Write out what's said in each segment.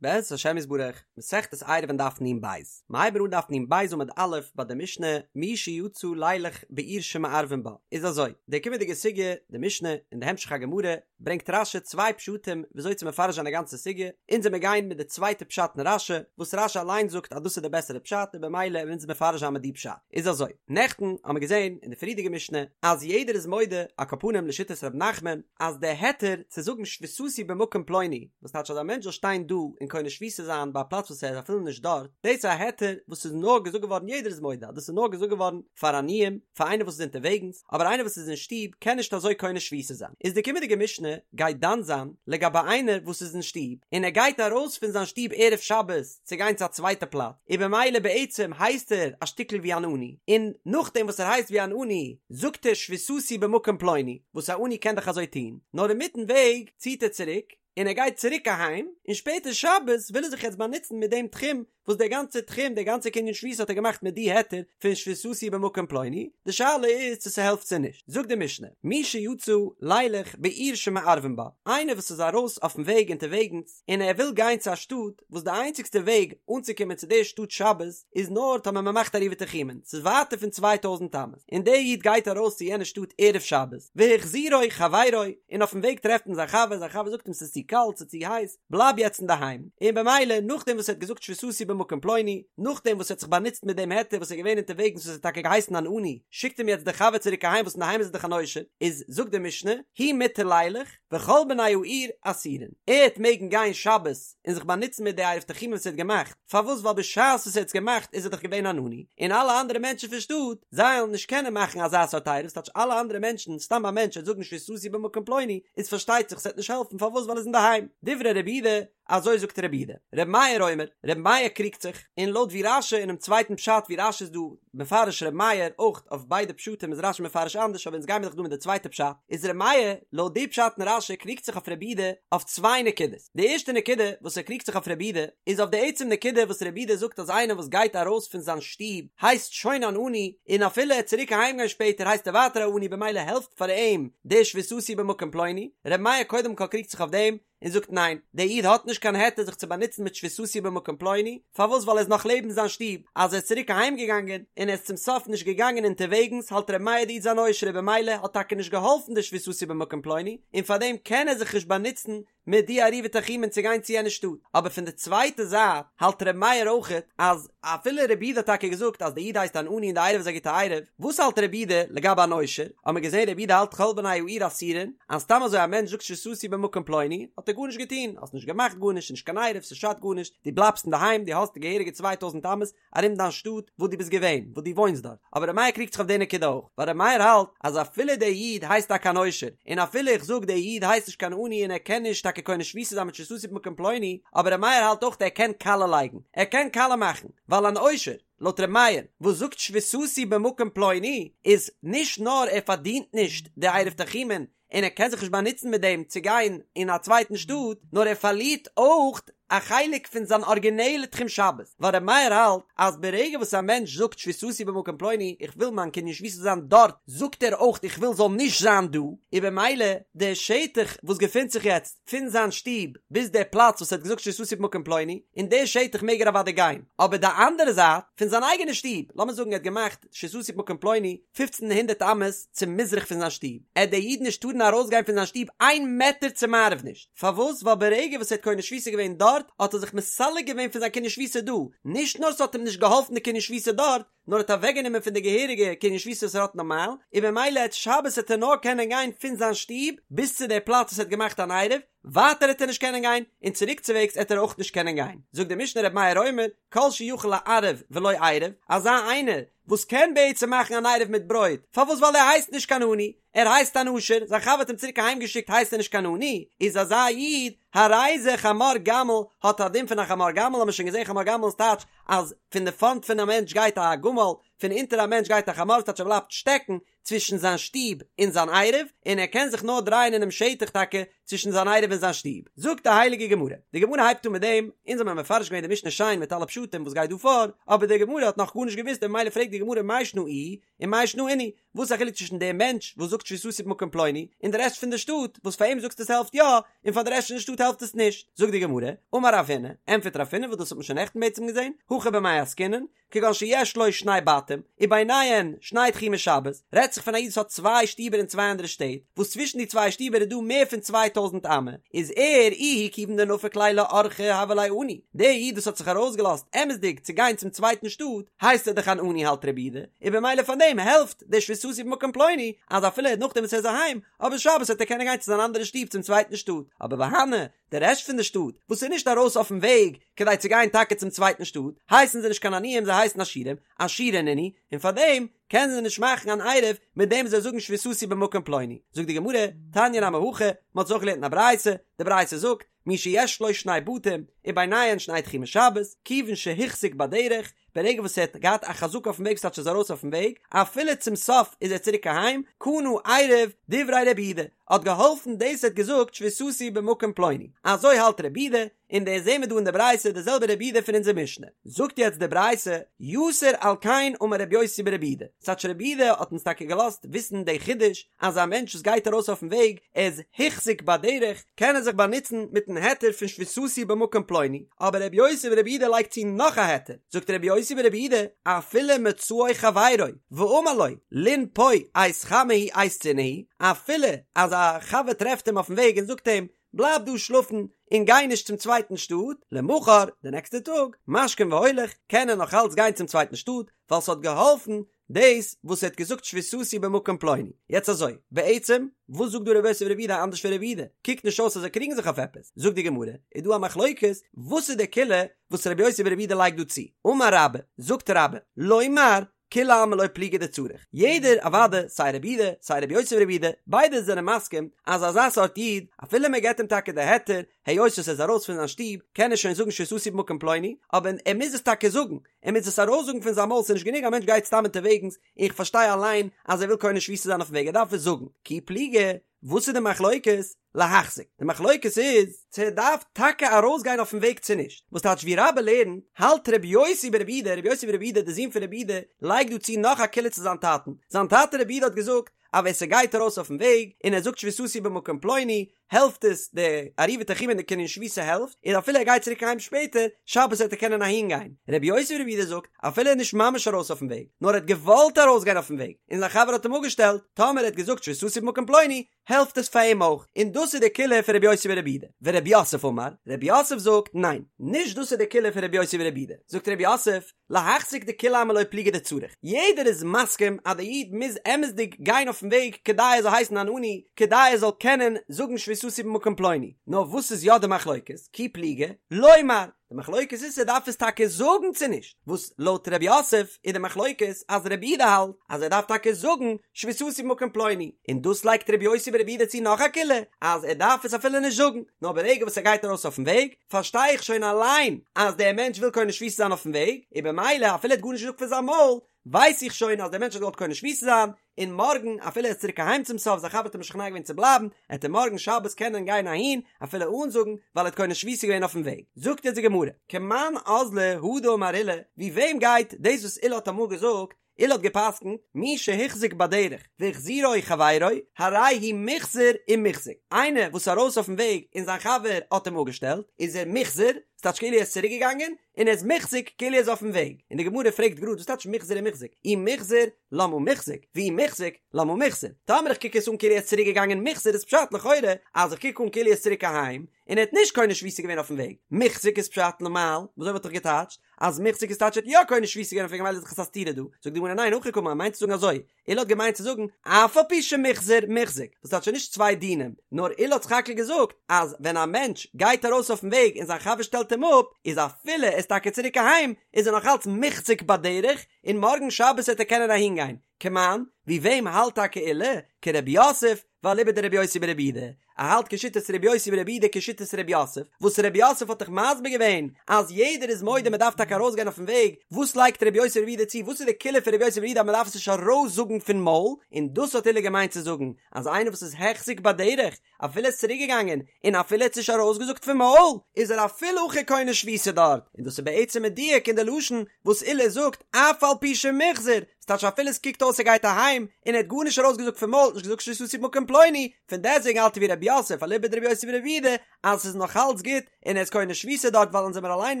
בעזרת השם יתברך, מסכת עירובין דף נ"ב, מ'הייבן אן דף נ"ב עמוד א' ביי די משנה מי שיצא לילך בעיר שמערבין בה, איז אזוי, די קומענדיגע סוגיא, די משנה, און די המשך הגמרא, ברענגט רש"י צוויי פשטים וויאזוי צו מפרש זיין די גאנצע סוגיא, אונז וועמיר גיין מיט די צווייטע פשט אין רש"י, וואס רש"י אליין זאגט אז דאס איז די בעסערע פשט און במילא וועלן אונז מפרש זיין מיט די פשט. איז אזוי, נעכטן האמיר געזען אין די פריערדיגע משנה אז יעדער איז מודה, על כל פנים לשיטת ר' נחמן, אז די היתר צו זאגן שביתתי במקום פלוני, וואס טייטש אז א מענטש זאל שטיין דא און קונה שביתה זיין ביי א פלאץ וואס ער איז אפילו נישט דארט, דאס איז א היתר וואס איז נאר געזאגט געווארן יעדער איז מודה אז דאס איז נאר געזאגט געווארן פאר עניים, פאר איינער וואס איז אונטערוועגנס, אבער איינער וואס איז אין שטוב קען נישט אזוי קונה שביתה זיין. איז די קומענדיגע משנה גייט דן זיין לגבי איינער וואס איז אין שטוב און ער גייט ארויס פון זיין שטוב ערב שבת צו גיין צו א צווייטע פלאץ, און במילא בעצם הייסט ער א שטיקל ווי אן עני, און נאכדעם וואס ער הייסט ווי אן עני זאגט ער שביתתי במקום פלוני, וואס א עני קען דאך אזוי טון, נאר אינמיטן וועג ציט ער צוריק און ער גייט צוריק אהיים, און שפעטער שבת וויל ער זיך יעצט באנוצן מיט דעם תחום, וואס דער גאנצער תחום, דער גאנצער קנין שביתה האט ער געמאכט מיט די היתר פון שביתתי במקום פלוני, די שאלה איז צו ס'העלפט צו נישט, זאגט די משנה, מי שיצא לילך בעיר שמערבין בה, איינער וואס איז ארויס אויפן וועג אונטערוועגנס און ער וויל גיין צו א שטאט וואס די איינציגסטע וועג אנצוקומען צו די שטאט שבת איז נאר טאמער מ'מאכט עירובי תחומין, ס'איז ווייטער פון 2000 אמות, און דער איד גייט ארויס צו יענע שטאט ערב שבת, והחזירו חברו, און אויפן וועג טרעפט אים זיין חבר, זיין חבר זאגט אים ס'איז צו קאלט, ס'איז צו הייס, בלייב יעצט אינדערהיים, און במילא נאכדעם וואס ער האט געזאגט שביתתי במקום פלוני, נאכדעם וואס ער האט זיך באנוצט מיט דעם היתר וואס ער איז געווען אונטערוועגנס וואס ער האט טאקע געהייסן אן עני, שיקט אים יעצט דער חבר צוריק אהיים וואס אינדערהיים איז ער דאך אן עושר, איז זאגט די משנה, הוא מותר לילך, וכל בני העיר אסורין, ער העט מעגן גיין שבת און זיך באנוצן מיט די עירוב תחומין וואס ער האט געמאכט, פארוואס ווייל בשעת וואס ער האט עס געמאכט איז ער דאך געווען אן עני, און אלע אנדערע מענטשן פון שטאט, זיי וועלן נישט קענען מאכן אזא סארט עירוב, ס'טייטש אלע אנדערע מענטשן, סתם א מענטש וועט זאגן שביתתי במקום פלוני, איז פארשטייט זיך ס'וועט נישט העלפן, פארוואס ווייל ער איז אינדערהיים. דברי רבי יהודה, אזוי זאגט רבי יהודה. רבי מאיר אומר, רבי מאיר קריגט זיך, און לויט ווי רש"י אינעם צווייטן פשט ווי רש"י איז דא מפרש רבי מאיר, אויך אויף ביידע פשטים איז רש"י מפרש אנדערש אבער אונז גיימיר דאך דא מיט די צווייטע פשט, איז רבי מאיר לויט די פשט אין רש"י קריגט זיך אויף רבי יהודה אויף צוויי נקודות. די ערשטע נקודה וואס ער קריגט זיך אויף רבי יהודה איז אויף די עצם נקודה וואס רבי יהודה זאגט אז איינער וואס גייט ארויס פון זיין שטוב הייסט שוין אן עני און אפילו ער צוריק אהיים גיין שפעטער הייסט ער ווייטער א עני במילא העלפט פאר אים די שביתתי במקום פלוני, רבי מאיר קודם כל קריגט זיך אויף דעם און זאגט ניין דער איד האט נישט קיין היתר זיך צו באנוצן מיט שביתתי במקום פלוני, פארוואס ווייל ער איז נאך לעבן זיין שטוב, אז ער איז צוריק אהיים געגאנגען און ער איז צום סוף נישט געגאנגען אונטערוועגנס האלט רבי מאיר די איד איז אן עושר און במילא האט טאקע נישט געהאלפן די שביתתי במקום פלוני און פארדעם קען ער זיך נישט באנוצן מיט די עירובי תחומין צו גיין צו יענע שטאט, אבער פון די צווייטע זייט האלט ר' מאיר אויכעט אז אפילו רבי יהודה האט טאקע געזאגט אז די איד הייסט אן עני און די עירוב איז א גוטע עירוב, וואס האלט רבי יהודה לגבי אן עושר? האט מען געזען רבי יהודה האלט כל בני העיר אסורין, אז סתם אזוי א מענטש זאגט שביתתי במקום פלוני האט ער גארנישט געטון, האסט נישט געמאכט גארנישט, ס'נישט קיין עירוב, ס'שאדט גארנישט, דו בלייבסט אינדערהיים, דו האסט די געהעריגע 2000 אמות, ארום דיין שטאט וואס דו ביסט געווען, וואס דו וואוינסט דארט, אבער ר' מאיר קריגט זיך אויף די נקודה אויך, ווייל ר' מאיר האלט אז אפילו דער איד הייסט טאקע אן עושר, און אפילו איך זאג דער איד הייסט נישט קיין עני און ער קען נישט טאקע קונה שביתה זיין מיט שביתתי במקום פלוני, אבער ר' מאיר האלט אויך ער קען קאלע לייגן, ער קען קאלע מאכן, ווייל אן עושר, לויט ר' מאיר, וואס זאגט שביתתי במקום פלוני, איז נישט נאר ער פארדינט נישט די עירוב תחומין, און ער קען זיך נישט באנוצן מיט דעם צו גיין אין א צווייטן שטאט, נאר ער פארלירט אויך א חלק פון זיין ארגינעלע תחום שבת, ווייל ר' מאיר האלט אז ברגע וואס א מענטש זאגט שביתתי במקום פלוני, איך וויל מיין קנין שביתה זיין דארט, זאגט ער אויך איך וויל זאל נישט זיין דא, און במילא די שטח וואס געפינט זיך יעצט פון זיין שטוב ביז די פלאץ וואס ער האט געזאגט שביתתי במקום פלוני, אין די שטח מעג ער אוודאי גיין, אבער די אנדערע זייט פון זיין אייגענע שטוב, לאמיר זאגן ער האט געמאכט שביתתי במקום פלוני, פופצן הונדערט אמות צו מזרח פון זיין שטוב, עט דער איד נישט טארן ארויסגיין פון זיין שטוב איין מעטער צו מערב נישט, פארוואס? ווייל ברגע וואס ער האט קונה שביתה געווען דארט, האט ער זיך מסלק געווען פון זיין קנין שביתה דא, נישט נאר ס'האט אים נישט געהאלפן די קנין שביתה דארט, נאר האט אוועקגענומען פון די געהעריגע קנין שביתה וואס ער האט נארמאל, און במילא עט שבת עט ער נאר קענען גיין פון זיין שטוב ביז צו די פלאץ וואס ער האט געמאכט אן עירוב, ווייטער עט ער נישט קענען גיין, און צוריקצווועגס עט ער אויך נישט קענען גיין. זאגט די משנה ר' מאיר אומר, כל שיכול לערב ולא עירב, אזא איינער וואס קען בעצם מאכן אן עירוב מיט ברויט, פארוואס ווייל ער הייסט נישט קיין עני, ער הייסט אן עושר, זיין חבר האט אים צוריק אהיים געשיקט הייסט ער נישט קיין עני, איז אזא איד, הרי זה חמור גמל, האט א דין פון א חמור גמל, האמיר שוין געזען חמור גמל איז טייטש אז פון די פארנט פון א מענטש גייט א גמל, פון אונטער א מענטש גייט א חמור, ס'טייטש ער בלייבט שטעקן צווישן זיין שטוב און זיין עירוב, און ער קען זיך נאר דרייען אינעם שטח טאקע צווישן זיין עירוב און זיין שטוב. זאגט די הייליגע גמרא, די גמרא הייבט אן מיט דעם, אונז האבן מפרש געווען די משנה שיין מיט אלע פשטים וואס גייט דא פאר, אבער די גמרא האט נאך גארנישט געוואוסט און ממילא פרעגט די גמרא מאי שנא איהו און מאי שנא אינהו, וואס איז א חילוק צווישן דעם מענטש וואס זאגט שביתתי במקום פלוני און די רעשט פון די שטאט וואס פאר אים זאגסטו עס העלפט יא און פאר די רעשט פון די שטאט העלפט. העלפט עס נישט. זאגט די גמרא, אמר רב הונא, ענטפערט רב הונא וואס דאס האט מען שוין נעכטן בעצם געזען, הכא במאי עסקינן, כגון שיש לו שני בתים, וביניהן שני תחומי שבת, רעדט זיך פון א איד וואס האט צוויי שטיבער אין צוויי אנדערע שטעט, וואס צווישן די צוויי שטיבער איז דא מער פון 2000 אמה, איז ער איהו כיוון דנפיק ליה לאורחא הוה ליה עני, דער איד וואס האט זיך ארויסגעלאזט אמת'דיג צו גיין צום צווייטן שטאט, הייסט ער דאך אן עני האלט רבי יהודה, און במילא פאר דעם העלפט די שביתתי במקום פלוני, אז אפילו נאכדעם וואס ער איז אהיים, אבער שבת וועט ער קענען גיין צו זיין אנדערע שטוב צום צווייטן שטאט, אבער והני, די רעשט פון די שטאט, וואס איז נישט ארויס אויפן וועג כדי צו גיין טאקע צום צווייטן שטאט, הייסן זיי נישט קיין עניים זיי הייסן עשירים, עשירי נינהו, און פארדעם קענען זיי נישט מאכן אן עירוב מיט דעם זיי זאגן שביתתי במקום פלוני. זאגט די גמרא, תניא נמי הכי, מען האט עס אויך געלערנט אין א ברייתא, די ברייתא זאגט, מי שיש לו שני בתים, וביניהן שני תחומי שבת, כיוון שהחזיק בדרך, ברגע וואס ער האט געהאט א חזקה אויפן וועג ס'טייטש ער איז ארויס אויפן וועג, אפילו צום סוף איז ער צוריק אהיים, קנה עירוב, דברי רבי יהודה, האט געהאלפן דאס ער האט געזאגט שביתתי במקום פלוני, אזוי האלט רבי יהודה, און דאס זעהן מיר דא אין די ברייתא די זעלבע רבי יהודה פון אונזער משנה. זאגט יעצט די ברייתא, יתר על כן אמר רבי יוסי ברבי יהודה, ס'טייטש רבי יהודה האט אונז טאקע געלאזט וויסן די חידוש אז א מענטש וואס גייט ארויס אויפן וועג ער איז החזיק בדרך קען ער זיך באנוצן מיטן היתר פון שביתתי במקום פלוני, אבער רבי יוסי ברבי יהודה לייגט צו נאך א היתר, זאגט רבי יוסי ברבי יהודה, אפילו מצאו חברו ואמר לו לין פה עת חמה היא עת צינה היא, אפילו אז א חבר טרעפט אים אויפן וועג און זאגט אים בלייב דא שלאפן און גיי נישט צום צווייטן שטאט, למחר, די נעקסטע טאג, משכים והולך, קען ער נאך אלץ גיין צום צווייטן שטאט, ווייל ס'האט געהאלפן דאס וואס ער האט געזאגט שביתתי במקום פלוני. יעצט אזוי, בעצם, וואס זאגט דא רבי יוסי ברבי יהודה אנדערש פון רבי יהודה? קוקט נישט אויס אז זיי קריגן זיך אויף עפעס. זאגט די גמרא, איז דא א מחלוקת, וואס איז די קולא וואס רבי יוסי ברבי יהודה לייגט דא צו? אמר רבה, זאגט רבה, לומר, כולי עלמא לא פליגי דצריך. יעדער, אוודאי, סיי רבי יהודה, סיי רבי יוסי ברבי יהודה, ביידע זענען מסכים אז אזא סארט איד, אפילו מען געבט אים טאקע די היתר, היות עס איז ארויס פון זיין שטוב, קען ער שוין זאגן שביתתי במקום פלוני, אבער ער מוז עס טאקע זאגן, ער מוז עס ארויסזאגן פון זיין מויל, ס'איז נישט גענוג א מענטש גייט סתם אונטערוועגנס, איך פארשטיי אליין אז ער וויל קונה שביתה זיין אויפן וועג, ער דארף עס זאגן. כי פליגי, וואס איז די מחלוקת? להחזיק. די מחלוקת איז צו ער דארף טאקע ארויסגיין אויפן וועג צו נישט. וואס טייטש ווי רבה לערנט, האלט רבי יוסי ברבי יהודה, רבי יוסי ברבי יהודה דער זון פון רבי יהודה, לייגט דא צו נאך א קולא צו זיין טאטן. זיין טאטע רבי יהודה האט געזאגט אז ווער ס'גייט ארויס אויפן וועג און ער זאגט שביתתי במקום פלוני, העלפט עס די עירובי תחומין די קנין שביתה העלפט, און אפילו ער גייט צוריק אהיים שפעטער, שבת וועט ער קענען אהין גיין. רבי יוסי ברבי יהודה זאגט, אפילו ער איז נישט ממש ארויס אויפן וועג, נאר ער האט געוואלט ארויסגיין אויפן וועג, און זיין חבר האט אים אפגעשטעלט, טאמער ער האט געזאגט שביתתי במקום פלוני, העלפט עס פאר אים אויך, און דאס איז די קולא פון רבי יוסי ברבי יהודה. ורב יוסף אמר, רב יוסף זאגט, ניין, נישט דאס איז די קולא פון רבי יוסי ברבי יהודה. זאגט רב יוסף, להחזיק דכולי עלמא לא פליגי דצריך, יעדער איז מסכים אז די איד מוז אמת'דיג גיין אויפן וועג כדי ער זאל הייסן אן עני, כדי ער זאל קענען זאגן שביתתי במקום פלוני, נאר וואס איז יא די מחלוקת, כי פליגי, לומר, די מחלוקת איז צו ער דארף עס טאקע זאגן צו נישט, וואס לויט ר' יוסף איז די מחלוקת אז רבי יהודה האלט אז ער דארף טאקע זאגן שביתתי במקום פלוני, און דאס לייגט רבי יוסי ברבי יהודה צו נאך א קולא אז ער דארף עס אפילו נישט זאגן, נאר ברגע וואס ער גייט ארויס אויפן וועג, פארשטיי איך שוין אליין אז דער מענטש וויל קונה שביתה זיין אויפן וועג, און במילא אפילו ער האט גארנישט געזאגט פון זיין מויל, ווייס איך שוין אז דער מענטש האט געוואלט קונה שביתה זיין, און מארגן אפילו ער איז צוריק אהיים צום סוף, זיין חבר האט אים משכנע געווען צו בלייבן, עט ער מארגן שבת קענען גיין אהין אפילו אן זאגן, ווייל ער האט קונה שביתה געווען אויפן וועג. זאגט יעצט די גמרא, כמאן אזלא הא דאמר עולא, ווי וועם גייט דאס וואס עולא האט אמאל געזאגט, עולא האט געפסקנט, מי שהוחזק בדרך והחזירו חברו, הרי הוא מוחזר ומוחזק, איינער וואס איז ארויס אויפן וועג און זיין חבר האט אים אפגעשטעלט, איז ער מוחזר, ס'טייטש כאילו ער איז צוריק געגאנגען, און ער איז מוחזק כאילו ער איז אויפן וועג, און די גמרא פרעגט גראד וואס טייטש מוחזר און מוחזק, אי מוחזר למה מוחזק, ואי מוחזק למה מוחזר, טאמער איך קוק עס אן כאילו ער איז צוריק געגאנגען מוחזר איז פשט לכאורה אז איך קוק אן כאילו ער איז צוריק אהיים, און ער האט נישט קונה שביתה געווען אויפן וועג, מוחזק איז פשט למעל, וויאזוי וואלט איך געטייטשט אז מוחזק איז טייטש ער האט יא קונה שביתה געווען אויפן וועג ממילא איז דאך עס א סתירה דא, זאגט די גמרא ניין הכי קאמר מיינט צו זאגן אזוי, עולא האט געמיינט צו זאגן אף על פי שמוחזר מוחזק, וואס טייטש נישט צוויי דינים, נאר עולא האט סך הכל געזאגט אז ווען א מענטש גייט ארויס אויפן וועג און זיין חבר שטעלט אים אפ, איז אפילו ער איז טאקע צוריק אהיים, איז ער נאך אלץ מוחזק בדרך, און מארגן שבת וועט ער קענען אהינגיין. כמאן, ווי וועם האלט טאקע עולא? כרב יוסף, ואליבא דרבי יוסי ברבי יהודה, ער האלט כשיטת רבי יוסי ברבי יהודה כשיטת רב יוסף, וואס רב יוסף האט דאך מסביר געווען אז יעדער איז מודה מען דארף טאקע ארויסגיין אויפן וועג, וואס לייגט רבי יוסי ברבי יהודה צו, וואס איז די קולא פון רבי יוסי ברבי יהודה אז מען דארף עס נישט ארויסזאגן פון מויל, און דאס האט עולא געמיינט צו זאגן אז איינער וואס איז החזיק בדרך אפילו ער איז צוריק געגאנגען און אפילו ער האט עס נישט ארויסגעזאגט פון מויל איז ער אפילו הכי קונה שביתה דארט, און דאס איז בעצם מדויק אין די לשון וואס עולא זאגט אף על פי שמוחזר. ס'טייטש אפילו עס קוקט אויס ער גייט אהיים און ער האט גארנישט ארויסגעזאגט פון מויל, נישט געזאגט שביתתי במקום פלוני, פון דעסטוועגן האלט ער ווי רב יוסף אליבא דרבי יוסי ברבי יהודה אז ס'איז נאך אלץ גוט און ער איז קונה שביתה דארט ווייל אונז זעמער אליין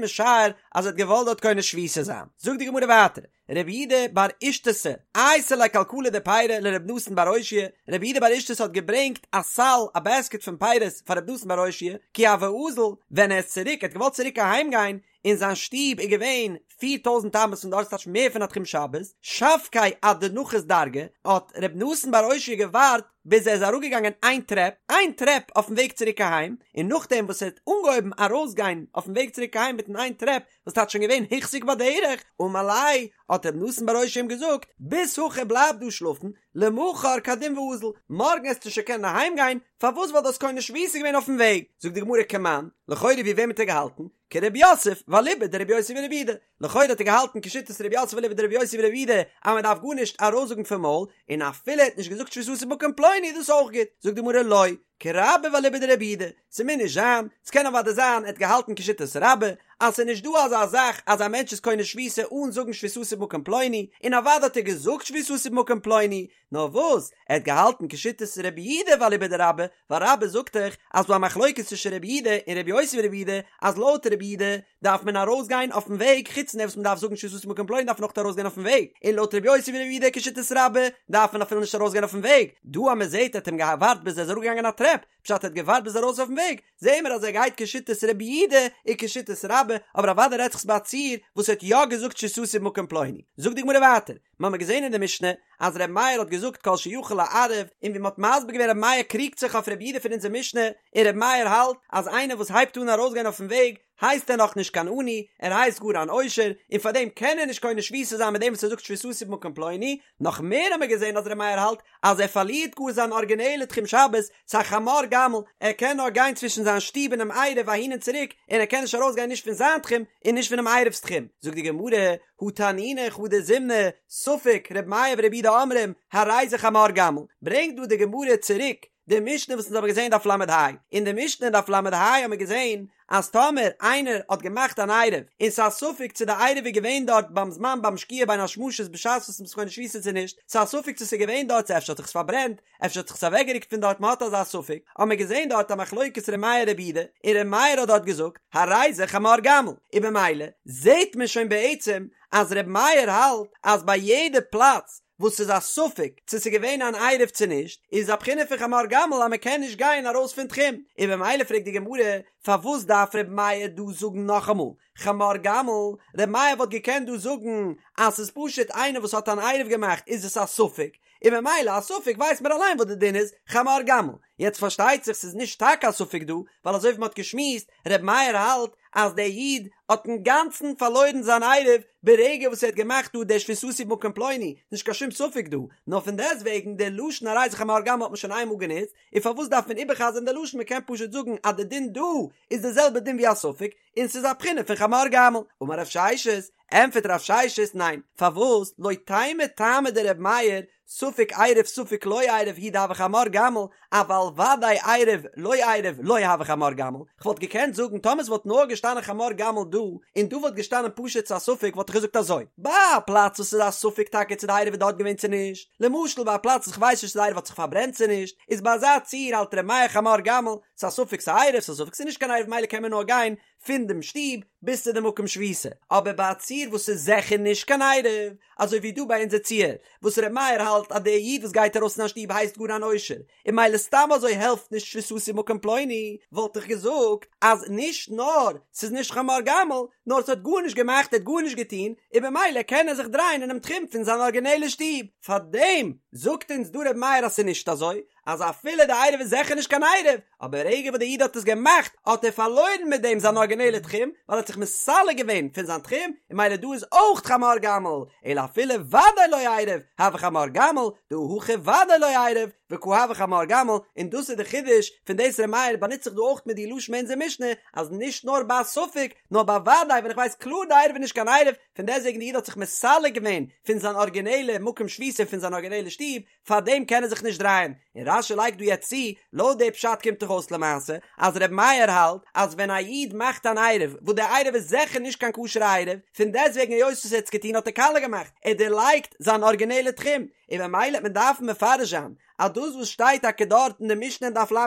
משער אז ער האט געוואלט דארט קונה שביתה זיין. זאגט די גמרא ווייטער, רב יהודה בר אישתתא, אייתי ליה כלכלה דפירי לרב נתן בר אושעיא, רב יהודה בר אישתתא האט געברענגט א סל, א בעסקעט פון פירות פאר רב נתן בר אושעיא, כי הוה אזיל, ווען ער איז צוריק, ער האט געוואלט צוריק אהיים גיין, און זיין שטוב איז געווען פיר טויזנט אמות פון דארט, ס'טייטש מער פון א תחום שבת, שבקיה עד דנחית דרגא, האט רב נתן בר אושעיא געווארט ביז ער איז אראפגעגאנגען איין טרעפ, איין טרעפ אויפן וועג צוריק אהיים, און נאכדעם וואס ער האט אנגעהויבן ארויסגיין אויפן וועג צוריק אהיים מיטן איין טרעפ, וואס טייטש שוין געווען הוחזק בדרך, אמר ליה, האט רב נתן בר אושעיא אים געזאגט, בית הכא בלייב דא שלאפן, למחר קדים ואזיל, מארגן עסטו שוין קענען אהיים גיין, פארוואס ווייל דו האסט קונה שביתה געווען אויפן וועג, זאגט די גמרא כמאן, לכאורה ווי וועם האט ער געהאלטן? כרב יוסף ואליבא דרבי יוסי ברבי יהודה, לכאורה האט ער געהאלטן כשיטת רב יוסף ואליבא דרבי יוסי ברבי יהודה אז מען דארף גארנישט ארויסזאגן פון מויל, און אפילו ער האט נישט געזאגט שביתתי במקום פלוני איז דאס אויך גוט, זאגט די גמרא לא, כרבה ואליבא דרבי יהודה, ס'מוז נישט זיין, ס'קען אוודאי זיין ער האט געהאלטן כשיטת רבה, אז ס'איז נישט דא אזא זאך אז א מענטש איז קונה שביתה אן זאגן שביתתי במקום פלוני, און אוודאי האט ער געזאגט שביתתי במקום פלוני, נאר וואס, ער האט געהאלטן כשיטת רבי יהודה ואליבא דרבה, ווייל רבה זאגט דאך אז ס'דא א מחלוקת צווישן רבי יהודה און רבי יוסי ברבי יהודה, אז לויט רבי יהודה דארף מען ארויסגיין אויפן וועג, חוץ פון דעם וואס מען דארף זאגן שביתתי במקום פלוני דארף מען אויך ארויסגיין אויפן וועג, און לויט רבי יוסי ברבי יהודה כשיטת רבה דארף מען אפילו נישט ארויסגיין אויפן וועג, דא אז מען זעט ער האט אים געווארט ביז ער איז אראפגעגאנגען א טרעפ, פשט ער האט געווארט ביז ארויס אויפן וועג, זעהן מיר אז ער גייט כשיטת רבי יהודה און כשיטת רבה, אבער אוודאי רעדט זיך ביי א ציור וואס ער האט יא געזאגט שביתתי במקום פלוני. זאגט די גמרא ווייטער, מיר האבן געזעהן אין די משנה אז ר' מאיר האט געזאגט כל שיכול לערב, און ווי מ'האט מסביר געווען ר' מאיר קריגט זיך אויף ר' יהודה פון אונזער משנה, און ר' מאיר האלט אז איינער וואס הייבט אן ארויסגיין אויפן וועג הייסט ער נאך נישט קיין עני, ער הייסט גאר אן עושר, און פארדעם קען ער נישט קונה שביתה זיין מיט דעם וואס ער זאגט שביתתי במקום פלוני, נאך מער האבן מיר געזען אז ר' מאיר האלט אז ער פארלירט גאר זיין ארגינעלע תחום שבת, ס'א חמור גמל, ער קען נאר גיין צווישן זיין שטוב און דעם עירוב אהין און צוריק, און ער קען נישט ארויסגיין נישט פון זיין תחום און נישט פונעם עירוב'ס תחום. זאגט די גמרא, הא תנינא חדא זימנא, ספק, ר' מאיר ור' יהודה אומרים, הרי זה חמור גמל. ברענגט דא די גמרא צוריק די משנה וואס אונז האבן געזען דף ל"ה. אין די משנה אין דף ל"ה האבן מיר געזען אז טאמער איינער האט געמאכט אן עירוב און ס'איז א ספק צו די עירוב איז געווען דארט ביים זמן ביים שקיעה בין השמשות בשעת וואס מ'איז קונה שביתה צו נישט, ס'איז א ספק צו ס'איז געווען דארט צו אפשר האט זיך עס פארברענט, אפשר האט זיך עס אוועקגערוקט פון דארט מ'האט אזא ספק, האבן מיר געזען דארט א מחלוקת ר' מאיר ר' יהודה, און ר' מאיר האט דארט געזאגט הרי זה חמור גמל, און במילא זעט מען שוין בעצם אז ר' מאיר האלט אז ביי יעדע פלאץ וואס ס'איז א ספק צו ס'איז געווען אן עירוב צו נישט, איז א בחינה פון חמור גמל אז מ'קען נישט גיין ארויס פון תחום, און במילא פרעגט די גמרא פארוואס דארף ר' מאיר דא זאגן נאכאמאל חמור גמל, ר' מאיר וואלט געקענט דא זאגן אז ס'איז פשוט איינער וואס האט אן עירוב געמאכט איז עס א ספק, און ממילא א ספק ווייסט מען אליין וואס די דין איז, חמור גמל. יעצט פארשטייט זיך ס'איז נישט טאקע א ספק דא, ווייל אזוי ווי מ'האט געשמועסט, ר' מאיר האלט אז דער איד האט אינגאנצן פארלוירן זיין עירוב ברגע וואס ער האט געמאכט דא דער שביתתי במקום פלוני, נישט קיין שום ספק דא, נאר פון דעסטוועגן דער לשון הרי זה חמור גמל האט מען שוין איינמאל גענוצט, און פארוואס דארף מען איבערחזר'ן דער לשון מ'קען פשוט זאגן אז די דין דא איז די זעלבע דין ווי א ספק, און ס'איז א בחינה פון חמור גמל. אמר רב ששת, ענטפערט רב ששת, ניין, פארוואס, לא תימא טעמא דר' מאיר, ספק עירב ספק לא עירב הוא דהוי חמור גמל, אבל ודאי עירב לא עירב לא הוי חמור גמל, כ'וואלט געקענט זאגן טאמער ס'וואלט נאר געשטאנען חמור גמל דא, און דא וואלט געשטאנען פשוט ס'איז א ספק וואלט איך געזאגט אזוי, ביי א פלאץ וואס ס'איז א ספק טאקע צו די עירוב איז דארט געווען צו נישט, למשל ביי א פלאץ וואס כ'ווייס נישט צו די עירוב האט זיך פארברענט צו נישט, איז ביי אזא ציור האלט ר' מאיר חמור גמל, ס'איז א ספק ס'איז עירוב ס'איז א ספק ס'איז נישט קיין עירוב מילא קען מען נאר גיין פון דעם שטוב ביז צו די מקום שביתה, אבער ביי א ציור וואס איז זיכער נישט קיין עירוב, אזוי ווי דא ביי אונזער ציור, וואס ר' מאיר האלט אז דער איד וואס גייט ארויס פון זיין שטוב הייסט גאר אן עושר, און מילא סתם אזוי העלפט נישט שביתתי במקום פלוני, וואלט איך געזאגט אז נישט נאר ס'איז נישט חמור גמל, נאר ס'האט גארנישט געמאכט ער האט גארנישט געטון, און במילא קען ער זיך דרייען אינעם תחום פון זיין ארגינעלע שטוב. פארדעם זאגט אונז דא ר' מאיר אז ס'איז נישט אזוי, אז אפילו די עירוב איז זיכער נישט קיין עירוב, אבער רגע וואס די איד האט עס געמאכט האט ער פארלוירן מיט דעם זיין ארגינעלע תחום, ווייל ער האט זיך מסלק געווען פון זיין תחום, און מילא דא איז אויך חמור גמל, אלא אפילו ודאי לא עירב, הוי חמור גמל, דהא הכא ודאי לא עירב, וקא הוי חמור גמל, און דאס איז די חידוש פון דאס ר' מאיר באנוצט זיך דא אויך מיט די לשון אין אונזער משנה, אז נישט נאר ביי א ספק, נאר ביי ודאי ווען איך ווייס קלאר די עירוב איז נישט קיין עירוב, פון דעסטוועגן די איד האט זיך מסלק געווען פון זיין ארגינעלע מקום שביתה פון זיין ארגינעלע שטוב, פאר דעם קען ער זיך נישט דרייען, און רש"י לייגט דא יעצט צו, לויט די פשט קומט דאך אויס למעשה אז ר' מאיר האלט אז ווען א איד מאכט אן עירוב וואס די עירוב איז זיכער נישט קיין כשר'ע עירוב, פון דעסטוועגן היות וואס ער האט עס געטון האט ער קאליע געמאכט, ער דערלייגט זיין ארגינעלע תחום, און ממילא וועט מען דארפן מפרש זיין אז דאס וואס שטייט טאקע דארט אין די משנה אין דף ל"ה,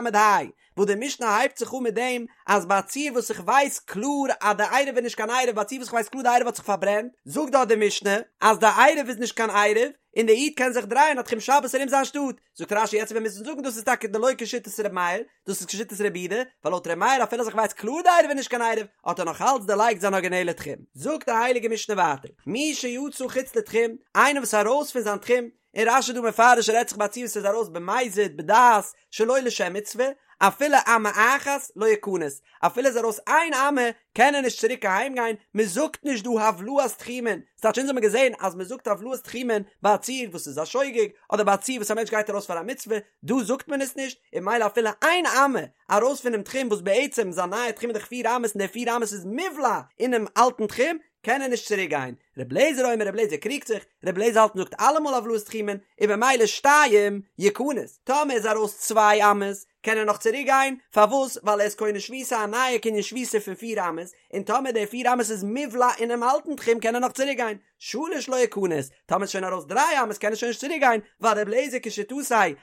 וואס די משנה הייבט זיך אן מיט דעם אז ביי א ציור וואס איך ווייס קלאר אז די עירוב איז נישט קיין עירוב ביי א ציור וואס איך ווייס קלאר די עירוב האט זיך פארברענט, זאגט דארט די משנה אז די עירוב איז נישט קיין עירוב און די איד קען זיך דרייען א תחום שבת ארום זיין שטאט, זאגט רש"י יעצט וועט מען מוזן זאגן דאס איז טאקע דלא כשיטת ר' מאיר, דאס איז כשיטת רבי יהודה, ווייל לויט ר' מאיר אפילו אז איך ווייס קלאר די עירוב איז נישט קיין עירוב האט ער נאך אלץ דערלייגט זיין ארגינעלע תחום. זאגט די הייליגע משנה ווייטער, מי שיצא חוץ לתחום, איינער וואס איז ארויס פון זיין תחום, און רש"י דא מפרש רעדט זיך ביי א ציור וואס איז ארויס במזיד בדעת שלא לשם מצוה, אפילו אמה אחת לא יכנס, אפילו איז ארויס איין אמה קען ער נישט צוריק אהיים גיין, מען זאגט נישט דא הבלעת תחומין, ס'טייטש אונז האמיר געזען אז מען זאגט הבלעת תחומין ביי א ציור וואס איז א שוגג, אדער ביי א ציור וואס א מענטש גייט ארויס פאר א מצוה, דא זאגט מען עס נישט, און ממילא אפילו איין אמה ארויס פונעם תחום וואס בעצם זיין נייע תחום איז דאך פיר אמות און די פיר אמות איז מובלע אינעם אלטן תחום, קען ער נישט צוריק גיין. ר' לעזער אומר ר' לעזער קריגט זיך, ר' לעזער האלט מ'זאגט אלעמאל הבלעת תחומין, און במילא שתיים יכנס, טאמער איז ארויס צוויי אמות, קען ער נאך צוריק גיין, פארוואס? ווייל ער איז קונה שביתה א נייע קנין שביתה פון פיר אמות, און טאמער די פיר אמות איז מובלע אינעם אלטן תחום קען ער נאך צוריק גיין, שלש לא יכנס, טאמער איז שוין ארויס דריי אמות קען ער שוין נישט צוריק גיין, ווייל ר' לעזער כשיטתו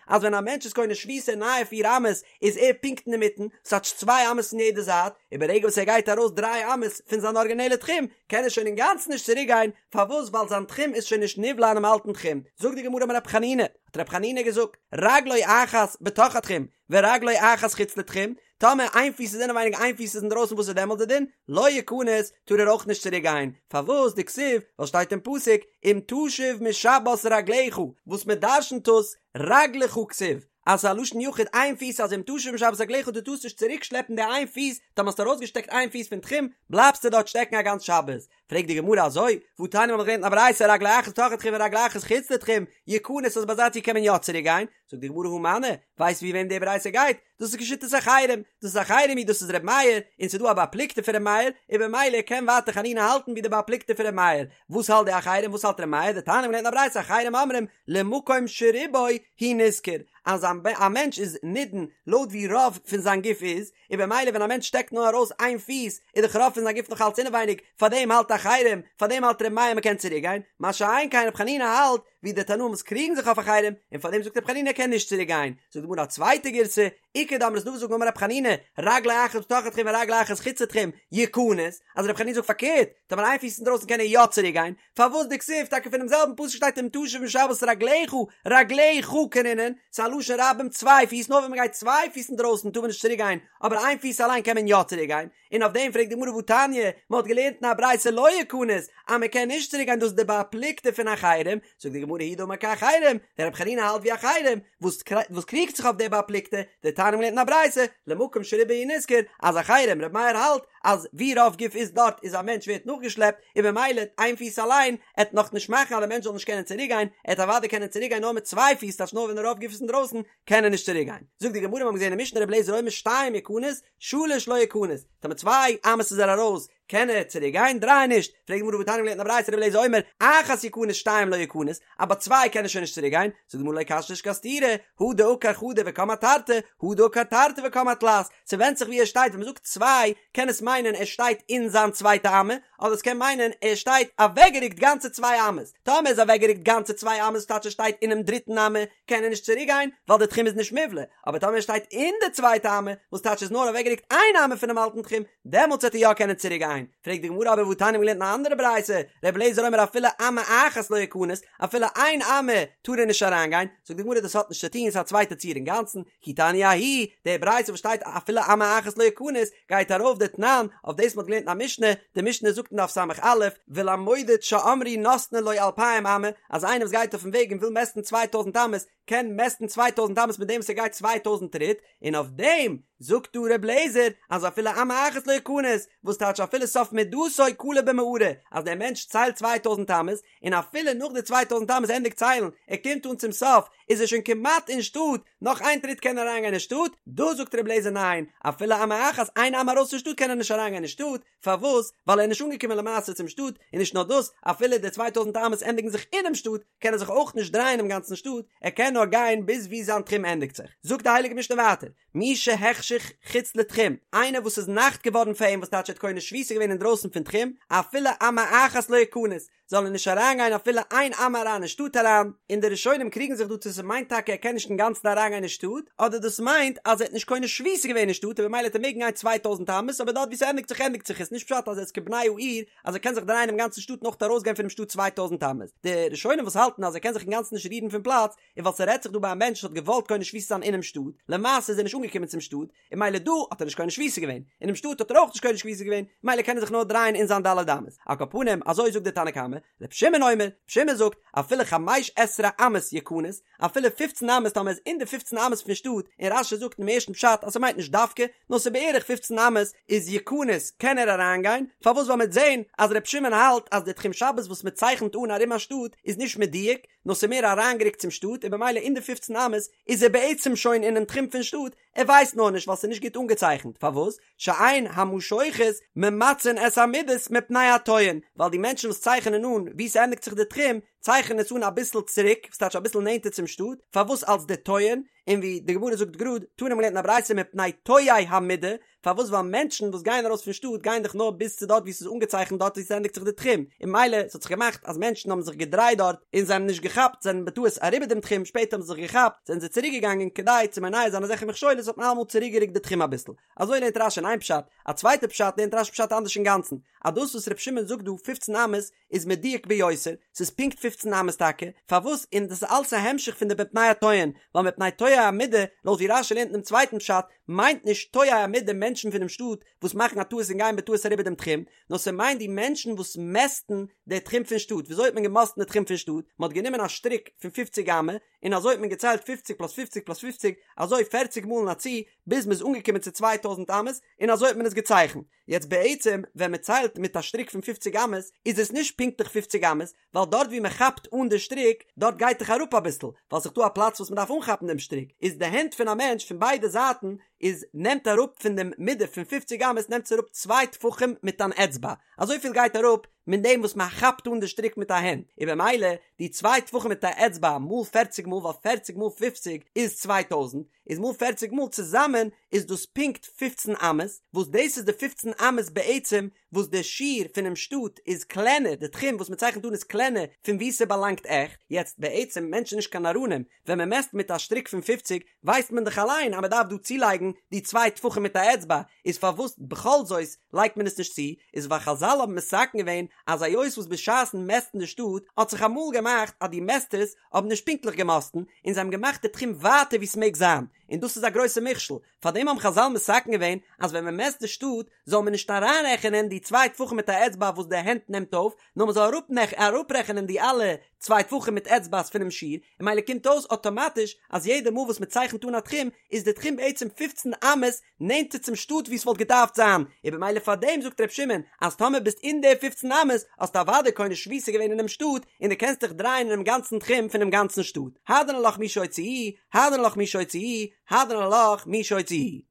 אז ווען א מענטש איז קונה שביתה נייע פיר אמות איז ער פונקט אינמיטן, ס'טייטש צוויי אמות פון יעדע זייט, און ברגע וואס ער גייט ארויס דריי אמות פון זיין ארגינעלע תחום, קען ער שוין אינגאנצן נישט צוריק גיין, פארוואס? ווייל זיין תחום איז שוין נישט נבלע אינעם אלטן תחום. זאגט די גמרא אמר רב חנינא, האט רב חנינא געזאגט, רגלו אחת בתוך התחום, ורגלו אחת חוץ לתחום, טאמער איין פיס איז אינעווייניג איין פיס איז אינדרויסן וואס איז דעמאלט די דין? לא יכנס, טאר ער אויך נישט צוריק גיין, פארוואס? דכתיב, ווייל שטייט אין פסוק, אם תשיב משבת רגלך, וואס מען דרשנ'ט עס, רגלך כתיב, אז ס'איז א לשון יחיד איין פיס אז אם תשיב משבת רגלך דו טארסט נישט צוריק שלעפן די איין פיס, טאמער האסטו ארויסגעשטעקט איין פיס פון תחום בלייבסטו דארט שטעקן א גאנץ שבת. פרעגט די גמרא אזוי, והתניא מ'האט געלערנט אין א ברייתא רגלו אחת בתוך התחום ורגלו אחת חוץ לתחום, יכנס אז ביי אזא ציור קען מען יא צוריק גיין, זאגט די גמרא הא מני, ווייסט ווי וועם די ברייתא גייט? דאס איז כשיטת אחרים, דאס איז אחרים היא דאס איז ר' מאיר, און ס'איז דא א בר פלוגתא פון ר' מאיר, און במילא קען ווייטער חנינא האלטן ווי די בר פלוגתא פון ר' מאיר, וואס האלט די אחרים וואס האלט ר' מאיר, דתניא מ'האט געלערנט אין א ברייתא אחרים אומרים למקום שרובו הוא נשכר, אז א מענטש איז נידון לויט ווי רוב פון זיין גוף איז, און במילא ווען א מענטש שטעקט נאר ארויס איין פיס איז דאך רוב פון זיין גוף נאך אלץ אינעווייניג, פארדעם האלט אחרים, פארדעם האלט ר' מאיר מ'קען צוריק גיין, מה שאין כן ר' חנינא האלט ווי די תנאים וואס קריגן זיך אויף אחרים, און פארדעם זאגט ר' חנינא ער קען נישט צוריק גיין, זאגט די גמרא א צווייטע גירסא, איכא דאמרי ס'דא וואס זאגן אמר ר' חנינא, רגלו אחת בתוך התחום ורגלו אחת חוץ לתחום, יכנס, אז ר' חנינא זאגט פארקערט, טאמער איין פיס אינדרויסן קען ער יא צוריק גיין, פארוואס דכתיב טאקע פונעם זעלבן פסוק שטייט אם תשיב משבת רגלך, רגלך קרינן, ס'איז א לשון רבים צוויי פיס, נאר ווען מ'גייט צוויי פיס אינדרויסן טאר מען נישט צוריק גיין, אבער איין פיס אליין קען מען יא צוריק גיין, און אויף דעם פרעגט די גמרא והתניא, מען האט געלערנט אין א ברייתא לא יכנס, אז מען קען נישט צוריק גיין דאס איז די בר פלוגתא פון אחרים, זאגט די גמרא הוא דאמר כאחרים, דער רבי חנינא האלט ווי אחרים, וואס וואס קריגט זיך אויף די בר פלוגתא, דתניא מ'האט געלערנט אין א ברייתא, למקום שרובו הוא נשכר, אז אחרים, רבי מאיר האלט, אז ווי רוב גוף איז דארט איז א מענטש ווערט נאכגעשלעפט, און במילא איין פיס אליין עט נאך נישט מאכן אז די מענטש זאל נישט קענען צוריק גיין, ער עט אוודאי קענען צוריק גיין נאר מיט צוויי פיס טייטש נאר ווען רוב גוף איז אינדרויסן קען ער נישט צוריק גיין. זאגט די גמרא מיר האבן געזען אין משנה רבי אליעזר אומר שתיים יכנס, שלש לא יכנס, טאמער צוויי אמות איז ער ארויס קען ער צוריק גיין, דריי נישט, פרעגט די גמרא והתניא מ'האט געלערנט אין א ברייתא רבי אליעזר אומר אחת יכנס שתיים לא יכנס, אז ביי צוויי קען ער שוין נישט צוריק גיין, זאגט די גמרא לא קשיא נישט קיין סתירה, הא דעקר חדא וקם אתרתי, הא דעקר תרתי וקם אתלת, ס'ווענדט זיך ווי ער שטייט, ווען מ'זאגט צוויי קען עס מיינען ער שטייט אין זיין צווייטע אמה, אדער עס קען מיינען ער שטייט אוועקגערוקט גאנצע צוויי אמות, טאמער איז אוועקגערוקט גאנצע צוויי אמות טייטש ער שטייט אינעם דריטן אמה, קען ער נישט צוריק גיין ווייל די תחום איז נישט מובלע, אבער טאמער ער שטייט אין די צווייטע אמה, וואס טייטש איז נאר אוועקגערוקט איין אמה פונעם אלטן תחום, דעמאלטס וועט ער יא קענען צוריק גיין. פרעגט די גמרא אבער והתניא מ'האט געלערנט אין א אנדערע ברייתא, ר' אליעזר אומר אפילו אמה אחת לא יכנס, אפילו איין אמה טאר ער נישט אריינגיין, זאגט די גמרא דאס האט נישט צו טון, ס'איז א צווייטע ציור אינגאנצן, כי תניא ההיא, די ברייתא וואס שטייט אפילו אמה אחת לא יכנס, גייט ארויף דתנן, אויף דאס מ'האט געלערנט אין א משנה, די משנה זאגט אין דף ס"א, ולמודד שאמרו נותנין לו אלפיים אמה, אז איינער וואס גייט אויפן וועג און וויל מעסטן צוויי טויזנט אמות, קען מעסטן צוויי טויזנט אמות מיט דעם וואס ער גייט צוויי טויזנט טריט, און אויף דעם זאגט דא ר' לעזער אז אפילו אמה אחת לא יכנס, וואס טייטש אפילו סוף מדתו כלה במערה, אז דער מענטש ציילט צוויי טויזנט אמות, און אפילו נאך די צוויי טויזנט אמות ענדיגט ציילן, ער קומט אן צום סוף, איז ער שוין כמעט אין שטאט, נאך איין טריט קען ער אריינגיין אין שטאט, דא זאגט ר' לעזער ניין, אפילו אמה אחת, איין אמה ארויס פון שטאט קען ער נישט אריינגיין אין שטאט, פארוואס? ווייל ער איז נישט אנגעקומען למעשה צום שטאט, און נישט נאר דאס, אפילו די צוויי טויזנט אמות ענדיגן זיך אינעם שטאט, קען ער זיך אויך נישט דרייען אינעם גאנצן שטאט, ער קען נאר. נאר גיין ביז ווי זיין תחום ענדיגט זיך. זאגט די הייליגע משנה ווייטער, מי שהחשיך חוץ לתחום, איינער וואס איז נאכט געווארן פאר אים וואס טייטש ער האט קונה שביתה געווען אינדרויסן פון תחום, אפילו אמה אחת לא יכנס, זאל ער נישט אריינגיין אפילו איין אמה אריין אין שטאט אריין, און די ראשונים קריגן זיך דא צו ס'מיינט טאקע ער קען נישט אינגאנצן אריינגיין אין שטאט, אדער דאס מיינט אז ער האט נישט קונה שביתה געווען אין שטאט און במילא וועט ער מעגן גיין 2000 אמות אבער דארט ווי ס'ענדיגט זיך ענדיגט זיך עס, נישט פשט אז ער איז כבני העיר אז ער קען זיך דרייען אינעם גאנצן שטאט און אויך ארויסגיין פונעם שטאט 2000 אמות, די ראשונים וואס האלטן אז ער קען זיך אינגאנצן נישט רירן פון פלאץ, איז ווייל ס'רעדט זיך דא ביי א מענטש וואס האט געוואלט קונה שביתה זיין אינעם שטאט, למעשה איז ער נישט אנגעקומען צום שטאט, און מילא דא האט ער נישט קונה שביתה געווען, אינעם שטאט האט ער אויך נישט קונה שביתה געווען, מילא קען ער זיך נאר דרייען אין זיין ד' אמות. על כל פנים, אזוי זאגט דער תנא קמא, ר' שמעון אומר, ר' שמעון זאגט, אפילו חמש עשרה אמות יכנס, אפילו פופצן אמות טאמער איז אין די פופצן אמות פון שטאט, און רש"י זאגט אינעם ערשטן פשט אז ס'מיינט נישט דווקא, נאר ס'איז בערך פופצן אמות, איז יכנס קען ער אריינגיין, פארוואס ווייל מ'וועט זען אז ר' שמעון האלט אז די תחום שבת וואס מ'צייכנט אן ארום א שטאט איז נישט מדויק, נאר ס'איז מער אריינגערוקט צום שטאט און במילא אין די פופצן אמות איז ער בעצם שוין אינעם תחום פון שטאט, ער ווייסט נאר נישט ווייל ס'איז נישט גוט אנגעצייכנט, פארוואס? שאין המשוכות ממצין את המידות מפני הטועים, ווייל די מענטשן וואס צייכענען אן וואו ס'ענדיגט זיך די תחום, צייכענען עס אן אביסל צוריק, וואס טייטש אביסל נענטער צום שטאט, פארוואס אלס די טועים, און ווי די גמרא זאגט גראד, תנא מ'האט געלערנט אין א ברייתא מפני טועי המידה, פארוואס ווייל מענטשן וואס גייען ארויס פון שטאט גייען דאך נאר ביז צו דארט וואו ס'איז אנגעצייכנט דארט וואו ס'ענדיגט זיך די תחום, און מילא ס'האט זיך געמאכט אז מענטשן האבן זיך געדרייט דארט און זיי האבן נישט געכאפט זענען בטעות אריבער דעם תחום שפעטער האבן זיי זיך געכאפט זענען זיי צוריק געגאנגען כדי צו מונע זיין אזעלכע מכשולות האט מען אלעמאל צוריק גערוקט די תחום אביסל. אזוי לערנט רש"י אין איין פשט, א צווייטע פשט לערנט רש"י פשט אנדערש אינגאנצן, אז דאס וואס ר' שמעון זאגט דא פופצן אמות איז מדויק ביותר, ס'איז פונקט פופצן אמות טאקע, פארוואס? און דאס איז אלס א המשך פון די מפני הטועין, ווייל מפני טועי המידה, לויט ווי רש"י לערנט אינעם צווייטן פשט, מיינט נישט טועי המידה מענטשן פונעם שטאט וואס מאכן א טעות און גייען בטעות אריבער דעם תחום, נאר ס'מיינט די מענטשן וואס מעסטן די תחום פון שטאט, וויאזוי האט מען געמאסטן די תחום פון שטאט? מ'האט גענומען א שטריק פון פופציג אמה, און אזוי האט מען געציילט פופציג פלאס פופציג פלאס פופציג, אזוי פערציג מאל אין א צי, ביז מ'איז אנגעקומען צו 2000 אמות, און אזוי האט מען עס געצייכנט. יעצט בעצם ווען מען ציילט מיט א שטריק פון פופציג אמות איז עס נישט פונקטליך פופציג אמות, ווייל דארט ווי מען כאפט אן די שטריק דארט גייט דאך אראפ אביסל, ווייל ס'איז דא א פלאץ וואס מען דארף אנכאפן דעם שטריק, איז די הענט פון א מענטש פון ביידע זייטן איז נעמט אראפ פון דעם מידה פון פופציג אמות נעמט עס אראפ צוויי טפחים מיט אן אצבע, אזויפיל גייט אראפ מיט דעם וואס מען כאפט אן די שטריק מיט א הענט, און במילא די צוויי טפחים מיט א אצבע מאל פערציג מאל ווייל פערציג מאל פופציג איז 2000, איז מאל פערציג מאל צוזאמען איז דאס פונקט פופצן אמות, וואס דאס איז די פופצן אמות בעצם וואס די שיעור פונעם שטאט איז קלענער, די תחום וואס מען צייכנט אן איז קלענער פון וואו ס'באלאנגט עכט, יעצט בעצם מענטשן נישט קיין נאראנים, ווען מען מעסט מיט א שטריק פון פופציג ווייסט מען דאך אליין אז מען דארף דא צולייגן די צוויי טפחים מיט א אצבע, איז פארוואס בכל זאת לייגט מען עס נישט צו, איז ווייל חזל האבן מתקן געווען אז היות וואס בשעת'ן מעסטן די שטאט האט זיך אמאל געמאכט אז די מעסטערס האבן נישט פונקטליך געמאסטן, און זיי האבן געמאכט די תחום ווייטער ווי ס'מעג זיין, און דאס איז א גרויסע מכשול, פארדעם האבן חזל מתקן געווען אז ווען מ'מעסט די שטאט זאל מען נישט אריינרעכענען די צוויי טפחים מיט א אצבע וואס די הענט נעמט אויף, נאר מ'זאל אראפרעכענען די אלע צוויי טפחים מיט אצבעס פונעם שיעור, און מילא קומט אויס אטאמאטיש אז יעדע מאל וואס מ'צייכנט אן א תחום איז די תחום בעצם פופצן אמות נענטער צום שטאט ווי ס'וואלט געדארפט זיין, און במילא פאר דעם זאגט ר' שמעון אז טאמער ביסט אין די פופצן אמות האסטו אוודאי קונה שביתה געווען אינעם שטאט און דו קענסט דיך דרייען אינעם גאנצן תחום פונעם גאנצן שטאט, הדרן עלך מי שהוציאוהו, הדרן עלך מי שהוציאוהו, הדרן עלך מי שהוציאוהו.